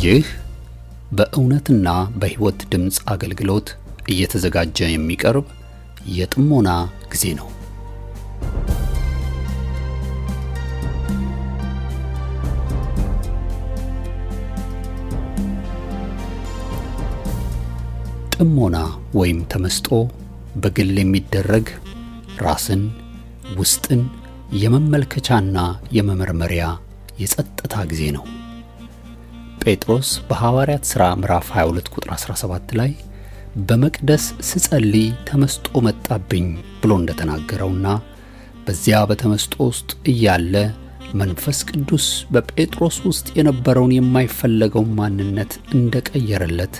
ይህ በእውነትና በሕይወት ድምጽ አገልግሎት እየተዘጋጀ የሚቀርብ የጥሞና ጊዜ ነው። ጥሞና ወይም ተመስጦ በግል የሚደረግ ራስን ውስጥን የመመልከቻና የመመርመሪያ የጸጥታ ጊዜ ነው። ጴጥሮስ በሐዋርያት ሥራ ምዕራፍ 22 ቁጥር 17 ላይ በመቅደስ ስጸልይ ተመስጦ መጣብኝ ብሎ እንደተናገረውና በዚያ በተመስጦ ውስጥ እያለ መንፈስ ቅዱስ በጴጥሮስ ውስጥ የነበረውን የማይፈለገው ማንነት እንደቀየረለት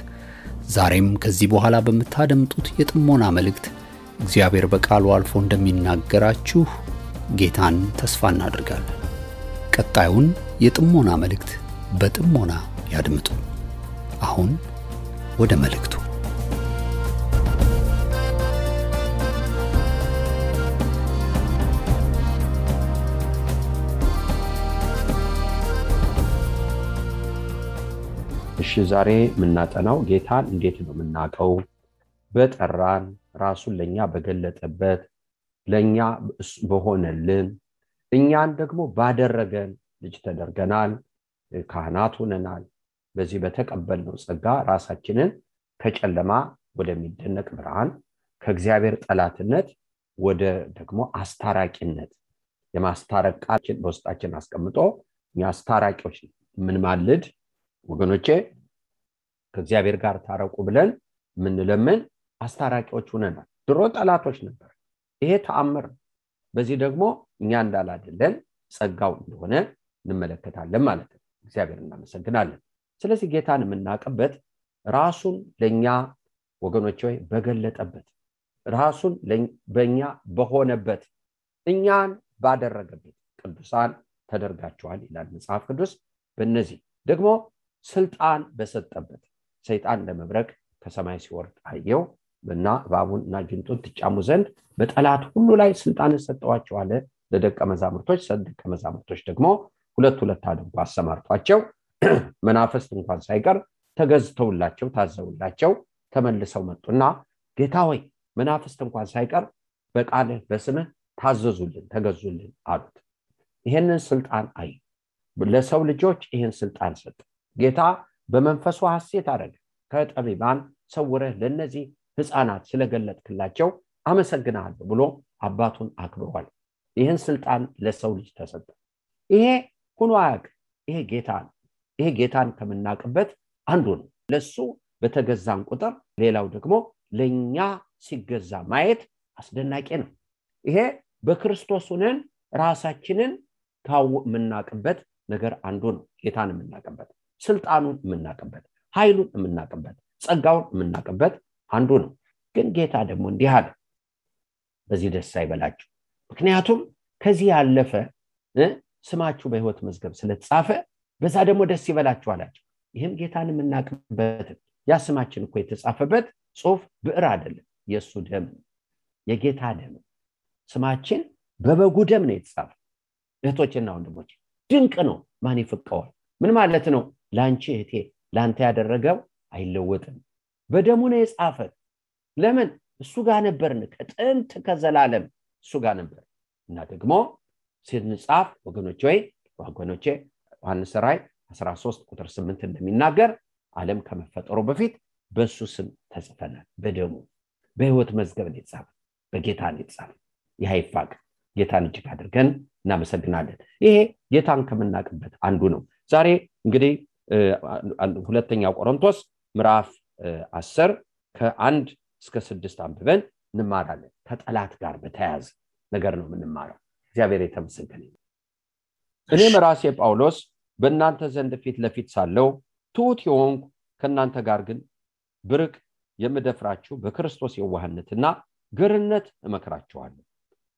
ዛሬም ከዚህ በኋላ በመታደምጡት የጥሞና መልእክት እግዚአብሔር በቃሉ አልፎ እንደሚናገራችሁ ጌታን ተስፋ እናደርጋለን። ቀጣዩን የጥሞና መልእክት በጥሞና ያድምጡ። አሁን ወደ መልእክቱ። እሺ ዛሬ ምናጠናው ጌታን እንዴት ነው ምናቀው? በጠራን ራሱን ለኛ በገለጠበት ለኛ በሆነልን እኛን ደግሞ ባደረገን ልጅ ተደርገናል፣ ካህናት ሆነናል። በዚህ በተቀበልነው ጸጋ ራሳችንን ከጨለማ ወደሚደነቅ ብርሃን ከእግዚአብሔር ጠላትነት ወደ ደግሞ አስታራቂነት የማስታረቅ ቃልን በውስጣችን አስቀምጦ እኛ አስታራቂዎች ምን ማልድ ወገኖቼ ከእግዚአብሔር ጋር ታረቁ ብለን ምን ለምን አስታራቂዎች ሆነናል። ድሮ ጠላቶች ነበር። ይሄ ተአምር። በዚህ ደግሞ እኛ እንዳላደለን ጸጋው እንደሆነ እንመለከታለን ማለት ነው። እግዚአብሔር እናመሰግናለን። ስለዚህ ጌታን የምናቀበት ራሱን ለኛ ወገኖቼ በገለጠበት ራሱን በእኛ በሆነበት እኛን ባደረገበት ቅዱሳን ተደርጋቸዋል ይላል መጽሐፍ ቅዱስ። በእነዚህ ደግሞ ስልጣን በሰጠበት ሰይጣን ለመብረቅ ከሰማይ ሲወርድ አየው እና እባቡንና ጅንጡን ትጫሙ ዘንድ በጠላት ሁሉ ላይ ስልጣን ሰጠዋቸው አለ ለደቀ መዛሙርቶች ደግሞ ሁለት አድርጎ አሰማርቷቸው መናፍስት እንኳን ሳይቀር ተገዝተውላቸው ታዘውላቸው ተመልሰው መጡና ጌታ ሆይ መናፍስት እንኳን ሳይቀር በቃልህ በስምህ ታዘዙልን ተገዙልን አሉት። ይሄንን ስልጣን ለሰው ልጆች ይሄን ስልጣን ሰጠ። ጌታ በመንፈሱ ሐሴት አደረገ። ከጠቢባን ሰውረህ ለነዚህ ሕፃናት ስለገለጥክላቸው አመሰግናለሁ ብሎ አባቱን አክብሯል። ይሄን ስልጣን ለሰው ልጅ ተሰጠ። ይሄ ሆኖ አያውቅ። ይሄ ጌታ ነው። ይሄ ጌታን ከምናቀበት አንዱ ነው። ለሱ በተገዛን ቁጥር ሌላው ደግሞ ለኛ ሲገዛ ማየት አስደናቂ ነው። ይሄ በክርስቶስ ሆነን ራሳችንን ምናቀበት ነገር አንዱ ነው። ጌታን ምናቀበት ስልጣኑን ምናቀበት ኃይሉን ምናቀበት ጸጋውን ምናቀበት አንዱ ነው። ግን ጌታ ደግሞ እንዲህ አለ፣ በዚህ ደስ አይበላችሁ፣ ምክንያቱም ከዚህ ያለፈ ስማችሁ በሕይወት መዝገብ ስለተጻፈ በዛ ደግሞ ደስ ይበላችሁ አላቸው። ይሄም ጌታን ምናቀበት ያ ስማችን እኮ የተጻፈበት ጽሑፍ ብዕር አይደለም፣ የሱ ደም የጌታ ደም ስማችን በበጉ ደም ነው የተጻፈ። እህቶችና ወንድሞች ድንቅ ነው። ማን ይፈቀዋል? ምን ማለት ነው? ላንቺ እህቴ ላንተ ያደረገው አይለወጥም። በደሙ ነው የጻፈ። ለምን? እሱ ጋር ነበርን። ከጥንት ከዘላለም እሱ ጋር ነበር እና ደግሞ ሲንጻፍ ወገኖቼ ዮሐንስ ራእይ 13 ቁጥር 8 እንደሚናገር ዓለም ከመፈጠሩ በፊት በሱ ስም ተጽፈናል። በደሙ በሕይወት መዝገብ ነው የተጻፈ። በጌታ ነው የተጻፈ። ይሃይፋቅ ጌታን እጅግ አድርገን እናመሰግናለን። ይሄ ጌታን ከምናቀበት አንዱ ነው። ዛሬ እንግዲህ ሁለተኛ ቆሮንቶስ ምዕራፍ 10 ከ1 እስከ 6 አንብበን እንማራለን። ከጠላት ጋር በተያያዘ ነገር ነው የምንማረው። እግዚአብሔር የተመሰገነ ይሁን። እኔም ራሴ ጳውሎስ በእናንተ ዘንድ ፊት ለፊት ሳለው ትሑት የሆንኩ ከእናንተ ጋር ግን ብርቅ የምደፍራችሁ በክርስቶስ የዋህነትና ገርነት እመክራችኋለሁ።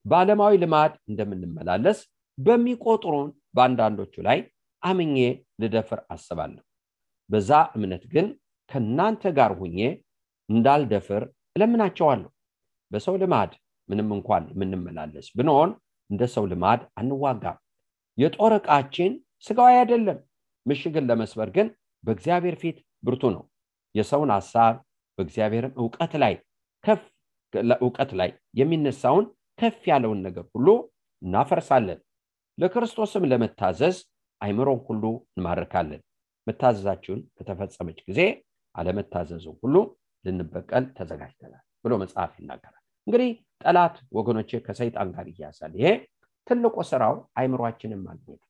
በዓለማዊ ልማድ እንደምንመላለስ በሚቆጥሩን በአንዳንዶቹ ላይ አምኜ ልደፍር አስባለሁ። በዛ እምነት ግን ከእናንተ ጋር ሁኜ እንዳልደፍር እለምናቸዋለሁ። በሰው ልማድ ምንም እንኳን የምንመላለስ ብንሆን እንደ ሰው ልማድ አንዋጋም። የጦር ዕቃችን ስጋዊ አይደለም፣ ምሽግን ለመስበር ግን በእግዚአብሔር ፊት ብርቱ ነው። የሰውን ሐሳብ በእግዚአብሔርም ዕውቀት ላይ የሚነሳውን ከፍ ያለውን ነገር ሁሉ እናፈርሳለን። ለክርስቶስም ለመታዘዝ አይምሮን ሁሉ እንማርካለን። መታዘዛችሁን ከተፈጸመች ጊዜ አለመታዘዙን ሁሉ ልንበቀል ተዘጋጅተናል ብሎ መጽሐፍ ይናገራል። እንግዲህ ጠላት ወገኖቼ ከሰይጣን ጋር ይያዛል። ይሄ ትልቁ ስራው አይምሮአችንን ማግኘት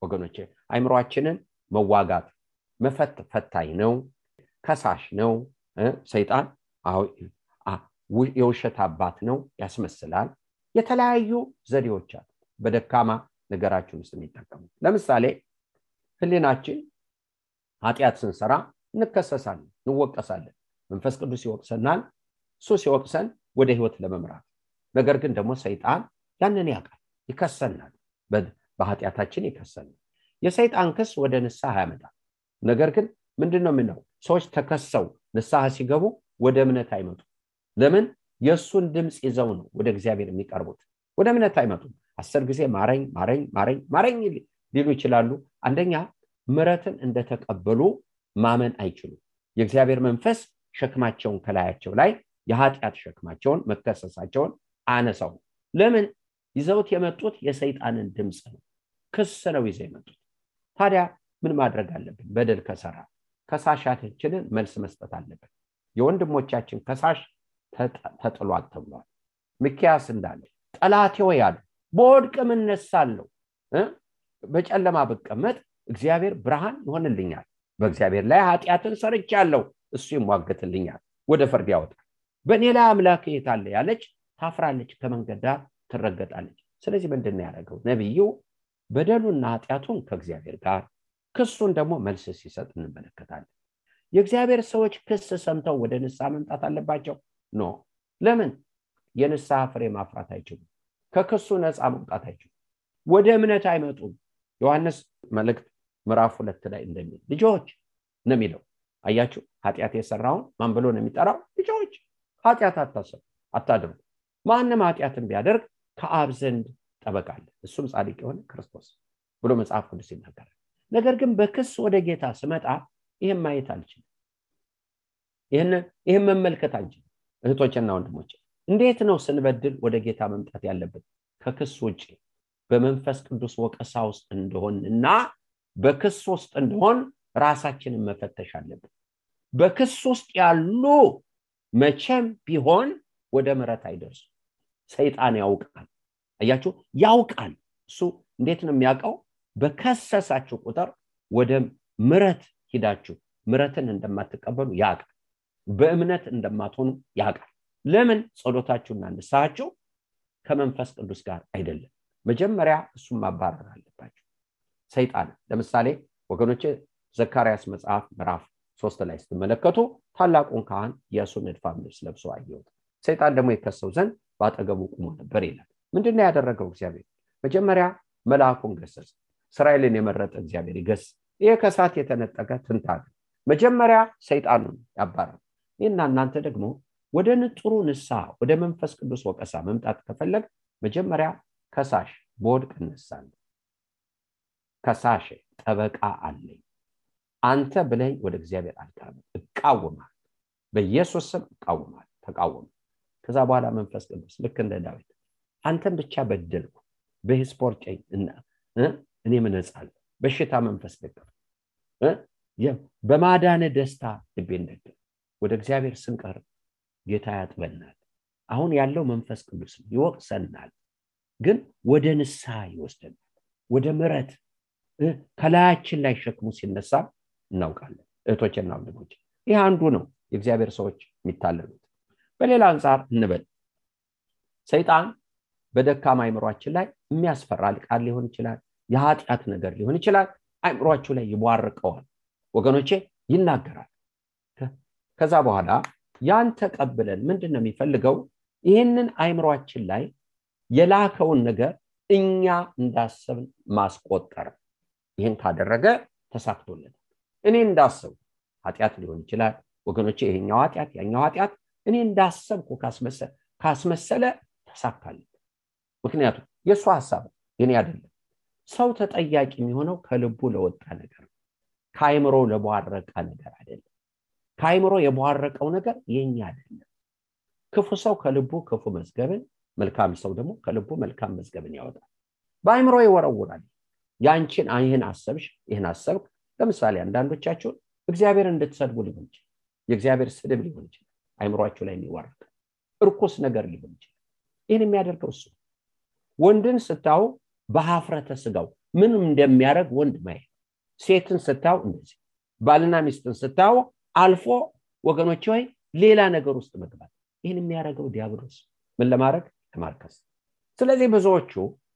ወገኖቼ። አይምሮአችንን መዋጋት ፈታኝ ነው፣ ከሳሽ ነው። ሰይጣን የውሸት አባት ነው፣ ያስመስላል። የተለያዩ ዘዴዎች አሉ በደካማ ነገራችን ውስጥ የሚጠቀሙ። ለምሳሌ ህሊናችን ኃጢአት ስንሰራ እንከሰሳለን፣ እንወቀሳለን። መንፈስ ቅዱስ ይወቅሰናል፣ እሱ ሲወቅሰን ወደ ህይወት ለመምራት። ነገር ግን ደግሞ ሰይጣን ያንን ያውቃል፣ ይከሰናል፣ በኃጢአታችን ይከሰናል። የሰይጣን ክስ ወደ ንስሐ ያመጣል። ነገር ግን ምንድነው የምንለው? ሰዎች ተከሰው ንስሐ ሲገቡ ወደ እምነት አይመጡም። ለምን? የእሱን ድምፅ ይዘው ነው ወደ እግዚአብሔር የሚቀርቡት። ወደ እምነት አይመጡም። 10 ጊዜ ማረኝ ማረኝ ማረኝ ማረኝ ሊሉ ይችላሉ። አንደኛ ምሕረትን እንደተቀበሉ ማመን አይችሉም። የእግዚአብሔር መንፈስ ሸክማቸውን ከላያቸው ላይ የኃጢአት ሸክማቸውን መከሰሳቸውን አነሳው። ለምን? ይዘውት የመጡት የሰይጣንን ድምፅ ነው፣ ክስ ነው ይዘው የመጡት። ታዲያ ምን ማድረግ አለብን? በደል ከሰራ ከሳሻችንን መልስ መስጠት አለብን። የወንድሞቻችን ከሳሽ ተጥሏል ተብሏል። ሚክያስ እንዳለ ጠላቴ ሆይ አለ በወድቅም እነሳለሁ፣ በጨለማ ብቀመጥ እግዚአብሔር ብርሃን ይሆንልኛል። በእግዚአብሔር ላይ ኃጢአትን ሰርቻለሁ፣ እሱ ይሟገትልኛል፣ ወደ ፍርድ ያወጣል። በእኔ ላይ አምላክ የት አለ ያለች ታፍራለች፣ ከመንገድ ዳር ትረገጣለች። ስለዚህ ምንድነው ያደረገው ነብዩ? በደሉና ኃጢአቱን ከእግዚአብሔር ጋር ክሱን ደግሞ መልስ ሲሰጥ እንመለከታለን። የእግዚአብሔር ሰዎች ክስ ሰምተው ወደ ንስሐ መምጣት አለባቸው? ኖ። ለምን? የንስሐ ፍሬ ማፍራት አይችሉም። ከክሱ ነፃ መውጣት አይችሉም። ወደ እምነት አይመጡም። ዮሐንስ መልእክት ምዕራፍ 2 ላይ እንደሚል ልጆች ነው የሚለው። አያችሁ፣ ኃጢአት የሰራውን ማን ብሎ ነው የሚጠራው? ልጆች። ኃጢአት አታድርጉ። ማንም ኃጢአትን ቢያደርግ ከአብ ዘንድ ጠበቃ አለ፣ እሱም ጻድቅ የሆነ ክርስቶስ ብሎ መጽሐፍ ቅዱስ ይናገራል። ነገር ግን በክስ ወደ ጌታ ስመጣ ይሄን ማየት አልችልም፣ ይሄን መመልከት አልችልም። እህቶችና ወንድሞች እንዴት ነው ስንበድል ወደ ጌታ መምጣት ያለብን? ከክስ ውጪ በመንፈስ ቅዱስ ወቀሳ ውስጥ እንደሆንና በክስ ውስጥ እንደሆን ራሳችንን መፈተሽ አለብን። በክስ ውስጥ ያሉ መቼም ቢሆን ወደ ምሕረት አይደርሱ። ሰይጣን ያውቃል። አያችሁ፣ ያውቃል። እሱ እንዴት ነው የሚያውቀው? በከሰሳችሁ ቁጥር ወደ ምሕረት ሂዳችሁ ምሕረትን እንደማትቀበሉ ያውቃል። በእምነት እንደማትሆኑ ያውቃል። ለምን? ጸሎታችሁና ንስሐችሁ ከመንፈስ ቅዱስ ጋር አይደለም። መጀመሪያ እሱን ማባረር አለባችሁ ሰይጣን። ለምሳሌ ወገኖቼ ዘካርያስ መጽሐፍ ምዕራፍ 3 ላይ ስትመለከቱ ታላቁን ካህን ኢያሱን እድፋም ልብስ ለብሶ አየሁት፣ ሰይጣን ደግሞ ይከሰው ዘንድ ባጠገቡ ቆሞ ነበር ይላል። ምንድነው ያደረገው እግዚአብሔር? መጀመሪያ መልአኩን ገሰጸ። እስራኤልን የመረጠ እግዚአብሔር ይገስ። ይሄ ከሳት የተነጠቀ ትንታግ መጀመሪያ ሰይጣኑን ያባረረ። እና እናንተ ደግሞ ወደ ንጥሩ ንስሐ ወደ መንፈስ ቅዱስ ወቀሳ መምጣት ከፈለግ መጀመሪያ ከሳሽ በወድቅ እነሳለሁ፣ ከሳሽ ጠበቃ አለኝ፣ አንተ ብለኝ ወደ እግዚአብሔር አልቀርብም፣ እቃወማለሁ፣ በኢየሱስ ስም እቃወማለሁ፣ ተቃወም። ከዛ በኋላ መንፈስ ቅዱስ ልክ እንደ ዳዊት አንተን ብቻ በደልኩ፣ በስፖርጨኝ እና እኔ ምነጻለሁ፣ በሽታ መንፈስ ደገፍ፣ በማዳነ ደስታ ልቤን ደገፍ። ወደ እግዚአብሔር ስንቀርብ ጌታ ያጥበናል። አሁን ያለው መንፈስ ቅዱስ ይወቅሰናል፣ ግን ወደ ንስሐ ይወስደናል፣ ወደ ምሕረት። ከላያችን ላይ ሸክሙ ሲነሳ እናውቃለን። እህቶችና ወንድሞች ይህ አንዱ ነው የእግዚአብሔር ሰዎች የሚታለሉት። በሌላ አንፃር እንበል ሰይጣን በደካማ አይምሮአችን ላይ የሚያስፈራ ቃል ሊሆን ይችላል፣ የኃጢአት ነገር ሊሆን ይችላል። አይምሮአችሁ ላይ ይቧርቀዋል ወገኖቼ፣ ይናገራል። ከዛ በኋላ ያን ተቀብለን ምንድነው የሚፈልገው? ይህንን አይምሮአችን ላይ የላከውን ነገር እኛ እንዳሰብን ማስቆጠር። ይህን ካደረገ ተሳክቶለታል። እኔ እንዳሰብኩ ኃጢአት ሊሆን ይችላል ወገኖቼ፣ ይሄኛው ኃጢአት ያኛው ኃጢአት እኔ እንዳሰብኩ ካስመሰለ ተሳካለት። ምክንያቱም የሱ ሐሳብ የኔ አይደለም። ሰው ተጠያቂ የሚሆነው ከልቡ ለወጣ ነገር፣ ከአይምሮ ለቧረቀ ነገር አይደለም። ከአይምሮ የቧረቀው ነገር የኛ አይደለም። ክፉ ሰው ከልቡ ክፉ መዝገብን፣ መልካም ሰው ደግሞ ከልቡ መልካም መዝገብን ያወጣል። በአይምሮ ይወረውራል። ያንቺን ይህን አሰብሽ፣ ይህን አሰብክ። ለምሳሌ አንዳንዶቻችሁ እግዚአብሔር እንድትሰድቡ ሊሆን ይችላል። የእግዚአብሔር ስድብ ሊሆን ይችላል። አይምሮአችሁ ላይ የሚወርቅ እርኩስ ነገር ሊሆን ይችላል። ይህን የሚያደርገው እሱ። ወንድን ስታው በሀፍረተ ስጋው ምንም እንደሚያደርግ ወንድ ማየት፣ ሴትን ስታው እንደዚህ፣ ባልና ሚስትን ስታው አልፎ ወገኖች ሆይ ሌላ ነገር ውስጥ መግባት። ይህን የሚያደርገው ዲያብሎስ ምን ለማድረግ? ለማርከስ። ስለዚህ ብዙዎቹ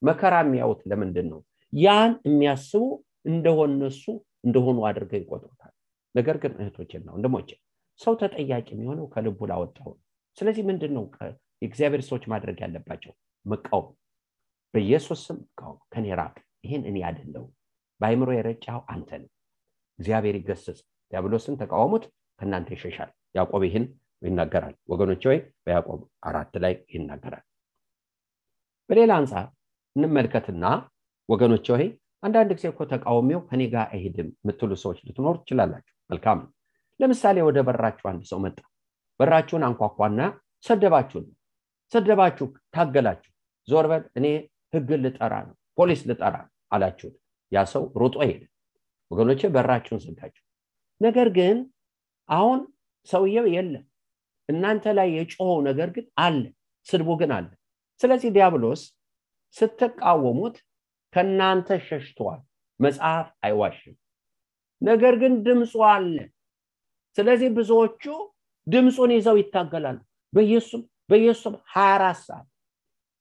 መከራ የሚያዩት ለምንድን ነው? ያን የሚያስቡ እንደሆነሱ እንደሆኑ አድርገው ይቆጥሩታል። ነገር ግን እህቶችና ወንድሞቼ ሰው ተጠያቂ የሚሆነው ከልቡ ላወጣው። ስለዚህ ምንድነው የእግዚአብሔር ሰዎች ማድረግ ያለባቸው? መቃወም። በኢየሱስ ስም መቃወም። ከኔ ራቅ፣ ይሄን እኔ አይደለሁም፣ በአይምሮ የረጫው አንተ ነህ። እግዚአብሔር ይገስጽ። ዲያብሎስን ተቃወሙት ከናንተ ይሸሻል። ያዕቆብ ይህን ይናገራል ወገኖቼ። ወይ በያዕቆብ 4 ላይ ይናገራል። በሌላ አንፃር እንመልከትና ወገኖቼ ሆይ አንዳንድ ጊዜ እኮ ተቃውሞው ከኔ ጋር አይሄድም የምትሉ ሰዎች ልትኖሩ ትችላላችሁ። መልካም። ለምሳሌ ወደ በራችሁ አንድ ሰው መጣ። በራችሁን አንኳኳና ሰደባችሁ፣ ታገላችሁ። ዞር በል እኔ ህግ ልጠራ ነው፣ ፖሊስ ልጠራ አላችሁ። ያ ሰው ሮጦ ሄደ። ወገኖቼ በራችሁን ዘጋችሁ። ነገር ግን አሁን ሰውየው የለም። እናንተ ላይ የጮኸው ነገር ግን አለ፣ ስድቡ ግን አለ። ስለዚህ ዲያብሎስ ስትቃወሙት ከናንተ ሸሽቷል። መጽሐፍ አይዋሽም። ነገር ግን ድምፁ አለ። ስለዚህ ብዙዎቹ ድምፁን ይዘው ይታገላሉ። በኢየሱስ 24 ሰዓት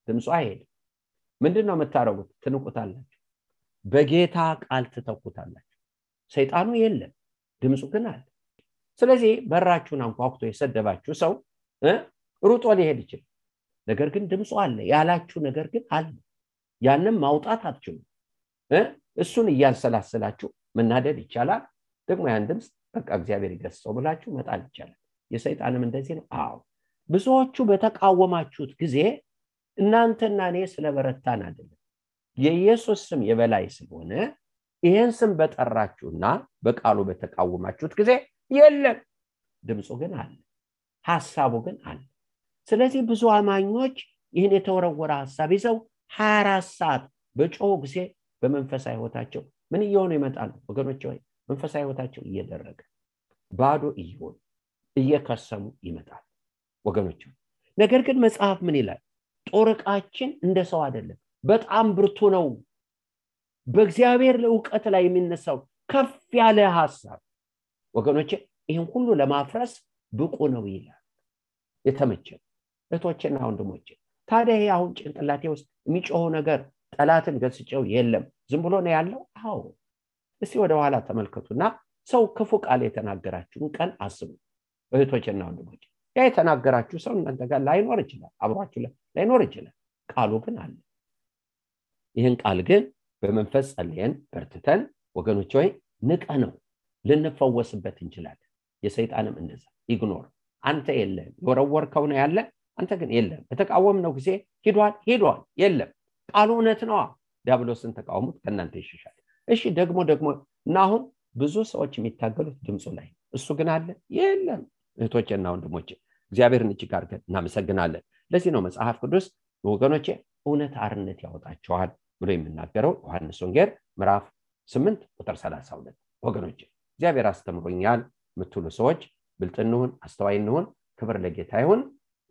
ድምፁ አይሄድም። ምንድነው የምታረጉት? ትንቁታላችሁ። በጌታ ቃል ትተኩታላችሁ። ሰይጣኑ የለም፣ ድምፁ ግን አለ። ስለዚህ በራችሁን አንኳኩቶ የሰደባችሁ ሰው ሩጦ ሊሄድ ይችላል። ነገር ግን ድምፁ አለ። ያላችሁ ነገር ግን አለ። ያንን ማውጣት አትችሉም። እሱን እያንሰላሰላችሁ መናደድ ይቻላል። ደግሞ ያን ድምፅ በቃ እግዚአብሔር ይገስጸው ብላችሁ መጣል ይቻላል። የሰይጣንም እንደዚህ ነው። አዎ ብዙዎቹ በተቃወማችሁት ጊዜ እናንተና እኔ ስለበረታን አይደለም፣ የኢየሱስ ስም የበላይ ስለሆነ ይሄን ስም በጠራችሁና በቃሉ በተቃወማችሁት ጊዜ የለም፣ ድምፁ ግን አለ፣ ሐሳቡ ግን አለ። ስለዚህ ብዙ አማኞች ይህን የተወረወረ ሐሳብ ይዘው 24 ሰዓት በጮሁ ጊዜ በመንፈሳዊ ሕይወታቸው ምን እየሆኑ ይመጣሉ ወገኖቼ? ወይ መንፈሳዊ ሕይወታቸው እየደረገ ባዶ እየሆኑ እየከሰሙ ይመጣል ወገኖቼ። ነገር ግን መጽሐፍ ምን ይላል? ጦር ዕቃችን እንደ ሰው አይደለም፣ በጣም ብርቱ ነው። በእግዚአብሔር ዕውቀት ላይ የሚነሳው ከፍ ያለ ሐሳብ ወገኖቼ ይሄን ሁሉ ለማፍረስ ብቁ ነው ይላል። የተመቸ እህቶቼና ወንድሞቼ፣ ታዲያ ይሄ አሁን ጭንቅላቴ ውስጥ የሚጮኸው ነገር ጠላትን ገስጨው የለም፣ ዝም ብሎ ነው ያለው? አዎ። እስቲ ወደ ኋላ ተመልከቱና ሰው ክፉ ቃል የተናገራችሁን ቀን አስቡ እህቶቼና ወንድሞቼ። ያ የተናገራችሁ ሰው እናንተ ጋር ላይኖር ይችላል፣ አብሯችሁ ላይኖር ይችላል። ቃሉ ግን አለ። ይህን ቃል ግን በመንፈስ ጸልየን በርትተን ወገኖቼ ሆይ ንቀነው ልንፈወስበት እንችላለን። የሰይጣንም እንደዛ ኢግኖር። አንተ የለም፣ የወረወርከው ነው ያለ፣ አንተ ግን የለም። በተቃወምነው ጊዜ ሄዷል የለም። ቃሉ እውነት ነው። ዲያብሎስን ተቃውሙት ከናንተ ይሸሻል። እሺ ደግሞ እና አሁን ብዙ ሰዎች የሚታገሉት ድምፁ ላይ፣ እሱ ግን አለ የለም። እህቶቼና ወንድሞቼ እግዚአብሔርን እጅግ አድርገን እናመሰግናለን። ለዚህ ነው መጽሐፍ ቅዱስ ወገኖቼ እውነት አርነት ያወጣቸዋል ብሎ የሚናገረው ዮሐንስ ወንጌል ምዕራፍ 8 ቁጥር 32። ወገኖቼ እግዚአብሔር አስተምሮኛል የምትሉ ሰዎች ብልጥ እንሁን፣ አስተዋይ እንሁን። ክብር ለጌታ ይሁን።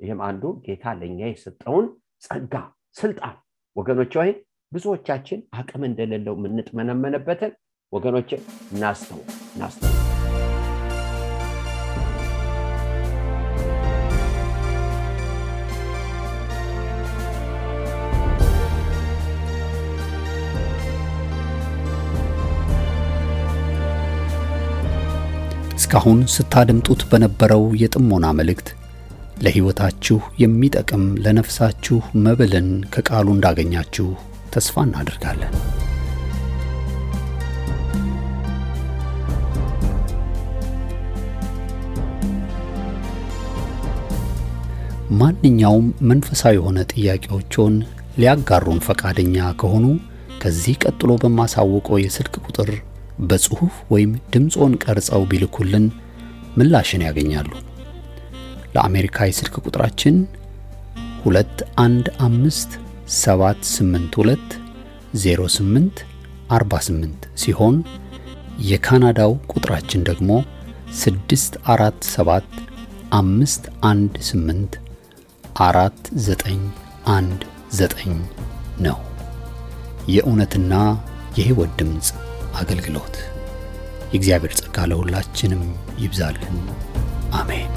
ይህም አንዱ ጌታ ለኛ የሰጠውን ጸጋ ስልጣን ወገኖቼ ሆይ ብዙዎቻችን አቅም እንደሌለው ምንጥመነመነበትን ወገኖቼ እናስተው እስካሁን ስታደምጡት በነበረው የጥሞና መልእክት ለሕይወታችሁ የሚጠቅም ለነፍሳችሁ መብልን ከቃሉ እንዳገኛችሁ ተስፋ እናደርጋለን። ማንኛውም መንፈሳዊ የሆነ ጥያቄዎችን ሊያጋሩን ፈቃደኛ ከሆኑ ከዚህ ቀጥሎ በማሳወቀው የስልክ ቁጥር በጽሑፍ ወይም ድምጾን ቀርጸው ቢልኩልን ምላሽን ያገኛሉ። ለአሜሪካ የስልክ ቁጥራችን 2157820848 ሲሆን የካናዳው ቁጥራችን ደግሞ 6475184919 ነው። የእውነትና የሕይወት ድምጽ አገልግሎት። የእግዚአብሔር ጸጋ ለሁላችንም ይብዛልን። አሜን።